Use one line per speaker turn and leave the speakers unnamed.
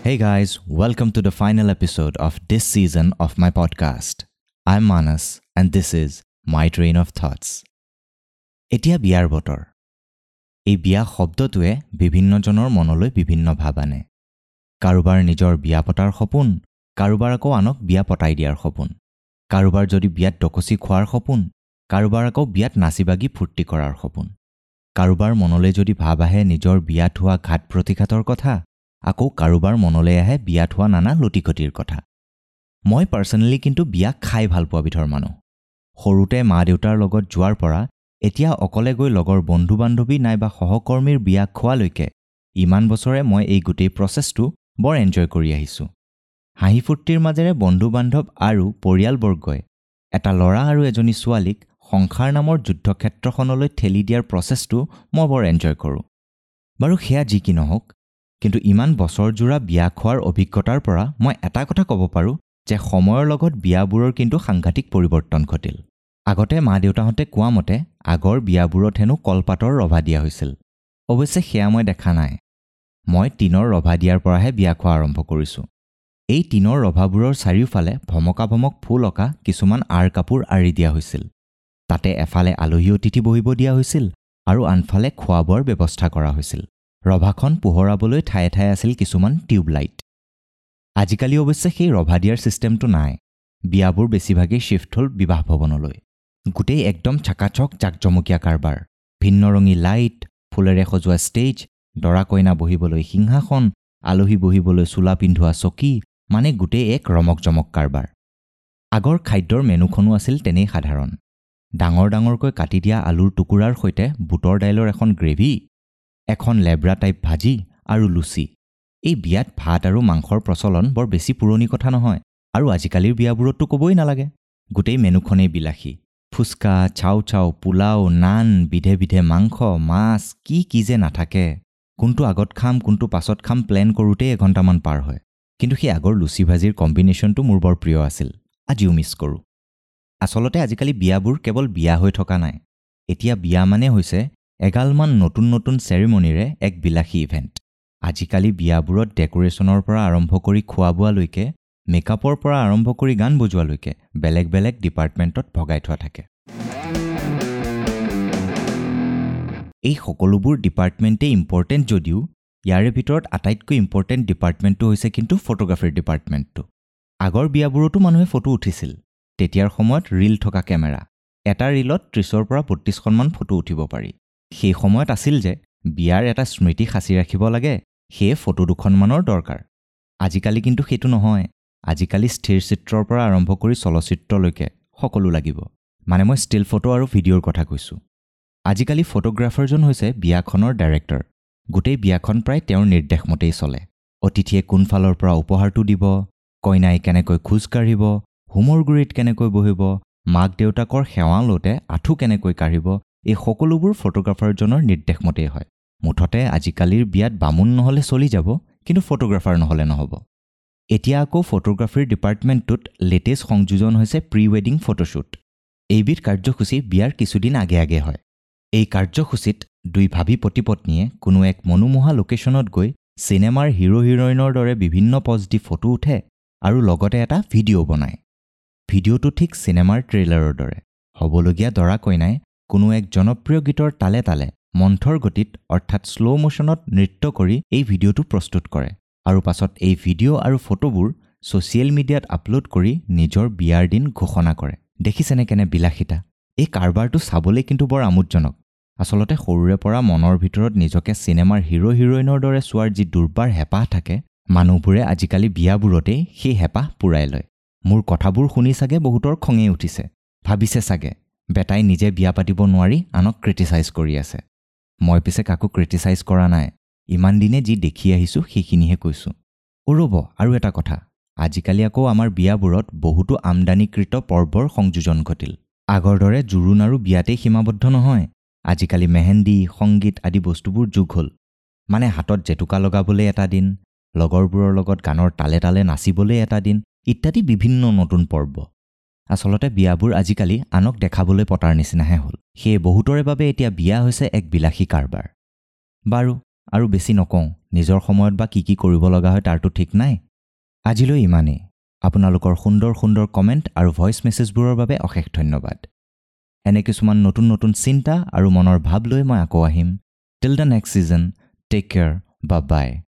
Hey guys, welcome to the final episode of this season of my podcast. I'm Manas and this is my train of thoughts. এতিয়া বিয়াৰ বতৰ। এই বিয়া শব্দটোৱে বিভিন্নজনৰ মনলৈ বিভিন্ন ভাৱ আনে। কাৰোবাৰ নিজৰ বিয়া পতাৰ সপোন, কাৰোবাৰ আকৌ আনক বিয়া পতাই দিয়াৰ সপোন, কাৰোবাৰ যদি বিয়াত দকচি খোৱাৰ সপোন, কাৰোবাৰ আকৌ বিয়াত নাচি বাগি ফূৰ্তি কৰাৰ সপোন, কাৰোবাৰ মনলৈ যদি ভাৱ আহে নিজৰ বিয়াত হোৱা ঘাত প্ৰতিঘাতৰ কথা, আকৌ কাৰোবাৰ মনলৈ আহে বিয়াত হোৱা নানা লটিঘটিৰ কথা। মই পাৰ্চনেলি কিন্তু বিয়া খাই ভাল পোৱা বিধৰ মানুহ। সৰুতে মা দেউতাৰ লগত যোৱাৰ পৰা এতিয়া অকলে গৈ লগৰ বন্ধু বান্ধৱী নাইবা সহকৰ্মীৰ বিয়া খোৱালৈকে ইমান বছৰে মই এই গোটেই প্ৰচেছটো বৰ এনজয় কৰি আহিছোঁ। হাঁহি ফূৰ্তিৰ মাজেৰে বন্ধু বান্ধৱ আৰু পৰিয়ালবৰ্গই এটা ল'ৰা আৰু এজনী ছোৱালীক সংসাৰ নামৰ যুদ্ধক্ষেত্ৰখনলৈ ঠেলি দিয়াৰ প্ৰচেছটো মই বৰ এনজয় কৰোঁ। বাৰু সেয়া যি কি নহওক, কিন্তু ইমান বছৰজোৰা বিয়া খোৱাৰ অভিজ্ঞতাৰ পৰা মই এটা কথা ক'ব পাৰোঁ যে সময়ৰ লগত বিয়াবোৰৰ কিন্তু সাংঘাতিক পৰিৱৰ্তন ঘটিল। আগতে মা দেউতাহঁতে কোৱা মতে আগৰ বিয়াবোৰত হেনো কলপাতৰ ৰভা দিয়া হৈছিল। অৱশ্যে সেয়া মই দেখা নাই। মই টিনৰ ৰভা দিয়াৰ পৰাহে বিয়া খোৱা আৰম্ভ কৰিছোঁ। এই টিনৰ ৰভাবোৰৰ চাৰিওফালে ভমকা ভমক ফুল অঁকা কিছুমান আঁৰ কাপোৰ আঁৰি দিয়া হৈছিল। তাতে এফালে আলহী অতিথি বহিব দিয়া হৈছিল আৰু আনফালে খোৱা বোৱাৰ ব্যৱস্থা কৰা হৈছিল। ৰভাখন পোহৰাবলৈ ঠায়ে ঠায়ে আছিল কিছুমান টিউবলাইট। আজিকালি অৱশ্যে সেই ৰভা দিয়াৰ ছিষ্টেমটো নাই। বিয়াবোৰ বেছিভাগেই শ্বিফ্ট হ'ল বিবাহ ভৱনলৈ। গোটেই একদম চাকাচক জাকজমকীয়া কাৰবাৰ, ভিন্ন ৰঙী লাইট, ফুলেৰে সজোৱা ষ্টেজ, দৰা কইনা বহিবলৈ সিংহাসন, আলহী বহিবলৈ চোলা পিন্ধোৱা চকী, মানে গোটেই এক ৰমক জমক কাৰবাৰ। আগৰ খাদ্যৰ মেনুখনো আছিল তেনেই সাধাৰণ। ডাঙৰ ডাঙৰকৈ কাটি দিয়া আলুৰ টুকুৰাৰ সৈতে বুটৰ দাইলৰ এখন গ্ৰেভি, এখন লেবৰা টাইপ ভাজি আৰু লুচি। এই বিয়াত ভাত আৰু মাংসৰ প্ৰচলন বৰ বেছি পুৰণি কথা নহয়, আৰু আজিকালিৰ বিয়াবোৰততো ক'বই নালাগে, গোটেই মেনুখনেই বিলাসী। ফুচকা, চাও চাও, পোলাও, নান, বিধে বিধে মাংস, মাছ, কি কি যে নাথাকে। কোনটো আগত খাম কোনটো পাছত খাম প্লেন কৰোঁতেই এঘণ্টামান পাৰ হয়। কিন্তু সেই আগৰ লুচি ভাজিৰ কম্বিনেশ্যনটো মোৰ বৰ প্ৰিয় আছিল, আজিও মিছ কৰোঁ। আচলতে আজিকালি বিয়াবোৰ কেৱল বিয়া হৈ থকা নাই, এতিয়া বিয়া মানে হৈছে এগালমান নতুন নতুন চেৰিমনিৰে এক বিলাসী ইভেণ্ট। আজিকালি বিয়াবোৰত ডেক'ৰেশ্যনৰ পৰা আৰম্ভ কৰি খোৱা বোৱালৈকে, মেকআপৰ পৰা আৰম্ভ কৰি গান বজোৱালৈকে বেলেগ বেলেগ ডিপাৰ্টমেণ্টত ভগাই থোৱা থাকে। এই সকলোবোৰ ডিপাৰ্টমেণ্টেই ইম্পৰ্টেণ্ট যদিও ইয়াৰে ভিতৰত আটাইতকৈ ইম্পৰ্টেণ্ট ডিপাৰ্টমেণ্টটো হৈছে কিন্তু ফটোগ্ৰাফীৰ ডিপাৰ্টমেণ্টটো। আগৰ বিয়াবোৰতো মানুহে ফটো উঠিছিল। তেতিয়াৰ সময়ত ৰীল থকা কেমেৰা, এটা ৰীলত 30ৰ পৰা 32খনমান ফটো উঠিব পাৰি। সেই সময়ত আছিল যে বিয়াৰ এটা স্মৃতি সাঁচি ৰাখিব লাগে, সেয়ে ফটো দুখনমানৰ দৰকাৰ। আজিকালি কিন্তু সেইটো নহয়। আজিকালি স্থিৰ চিত্ৰৰ পৰা আৰম্ভ কৰি চলচ্চিত্ৰলৈকে সকলো লাগিব। মানে মই ষ্টিল ফটো আৰু ভিডিঅ'ৰ কথা কৈছোঁ। আজিকালি ফটোগ্ৰাফাৰজন হৈছে বিয়াখনৰ ডাইৰেক্টৰ। গোটেই বিয়াখন প্ৰায় তেওঁৰ নিৰ্দেশ মতেই চলে। অতিথিয়ে কোনফালৰ পৰা উপহাৰটো দিব, কইনাই কেনেকৈ খোজ কাঢ়িব, হোমৰ গুৰিত কেনেকৈ বহিব, মাক দেউতাকৰ সেৱা লওঁতে আঁঠু কেনেকৈ কাঢ়িব, এই সকলোবোৰ ফটোগ্ৰাফাৰজনৰ নিৰ্দেশ মতেই হয়। মুঠতে আজিকালিৰ বিয়াত বামুণ নহ'লে চলি যাব, কিন্তু ফটোগ্ৰাফাৰ নহ'লে নহ'ব। এতিয়া আকৌ ফটোগ্ৰাফীৰ ডিপাৰ্টমেণ্টটোত লেটেষ্ট সংযোজন হৈছে প্ৰি ৱেডিং ফটোশ্বুট। এইবিধ কাৰ্যসূচী বিয়াৰ কিছুদিন আগে আগে হয়। এই কাৰ্যসূচীত দুই ভাবী পতি পত্নীয়ে কোনো এক মনোমোহা লোকেশ্যনত গৈ চিনেমাৰ হিৰ' হিৰইনৰ দৰে বিভিন্ন পজ দি ফটো উঠে আৰু লগতে এটা ভিডিঅ' বনায়। ভিডিঅ'টো ঠিক চিনেমাৰ ট্ৰেইলাৰৰ দৰে। হ'বলগীয়া দৰা কইনাই কোনো এক জনপ্ৰিয় গীতৰ তালে তালে মন্থৰ গতিত অৰ্থাৎ শ্ল' মোশ্যনত নৃত্য কৰি এই ভিডিঅ'টো প্ৰস্তুত কৰে আৰু পাছত এই ভিডিঅ' আৰু ফটোবোৰ ছ'চিয়েল মিডিয়াত আপলোড কৰি নিজৰ বিয়াৰ দিন ঘোষণা কৰে। দেখিছেনে কেনে বিলাসিতা! এই কাৰবাৰটো চাবলৈ কিন্তু বৰ আমোদজনক। আচলতে সৰুৰে পৰা মনৰ ভিতৰত নিজকে চিনেমাৰ হিৰ' হিৰইনৰ দৰে চোৱাৰ যি দুৰ্বাৰ হেঁপাহ থাকে, মানুহবোৰে আজিকালি বিয়াবোৰতেই সেই হেঁপাহ পূৰাই লয়। মোৰ কথাবোৰ শুনি চাগে বহুতৰ খঙেই উঠিছে, ভাবিছে চাগে বেটাই নিজে বিয়া পাতিব নোৱাৰি আনক ক্ৰিটিচাইজ কৰি আছে। মই পিছে কাকো ক্ৰিটিচাইজ কৰা নাই, ইমান দিনে যি দেখি আহিছোঁ সেইখিনিহে কৈছোঁ। ৰ'ব, আৰু এটা কথা, আজিকালি আকৌ আমাৰ বিয়াবোৰত বহুতো আমদানিকৃত পৰ্বৰ সংযোজন ঘটিল। আগৰ দৰে জোৰোণ আৰু বিয়াতেই সীমাবদ্ধ নহয়। আজিকালি মেহেন্দি, সংগীত আদি বস্তুবোৰ যোগ হ'ল। মানে হাতত জেতুকা লগাবলৈ এটা দিন, লগৰবোৰৰ লগত গানৰ তালে তালে নাচিবলৈ এটা দিন, ইত্যাদি বিভিন্ন নতুন পৰ্ব। আচলতে বিয়াবোৰ আজিকালি আনক দেখাবলৈ পতাৰ নিচিনাহে হ'ল। সেয়ে বহুতৰে বাবে এতিয়া বিয়া হৈছে এক বিলাসী কাৰবাৰ। বাৰু, আৰু বেছি নকওঁ, নিজৰ সময়ত বা কি কি কৰিব লগা হয় তাৰতো ঠিক নাই। আজিলৈ ইমানেই। আপোনালোকৰ সুন্দৰ সুন্দৰ কমেণ্ট আৰু ভইচ মেছেজবোৰৰ বাবে অশেষ ধন্যবাদ। এনে কিছুমান নতুন নতুন চিন্তা আৰু মনৰ ভাৱ লৈ মই আকৌ আহিম। Till the next season, take care, bye bye.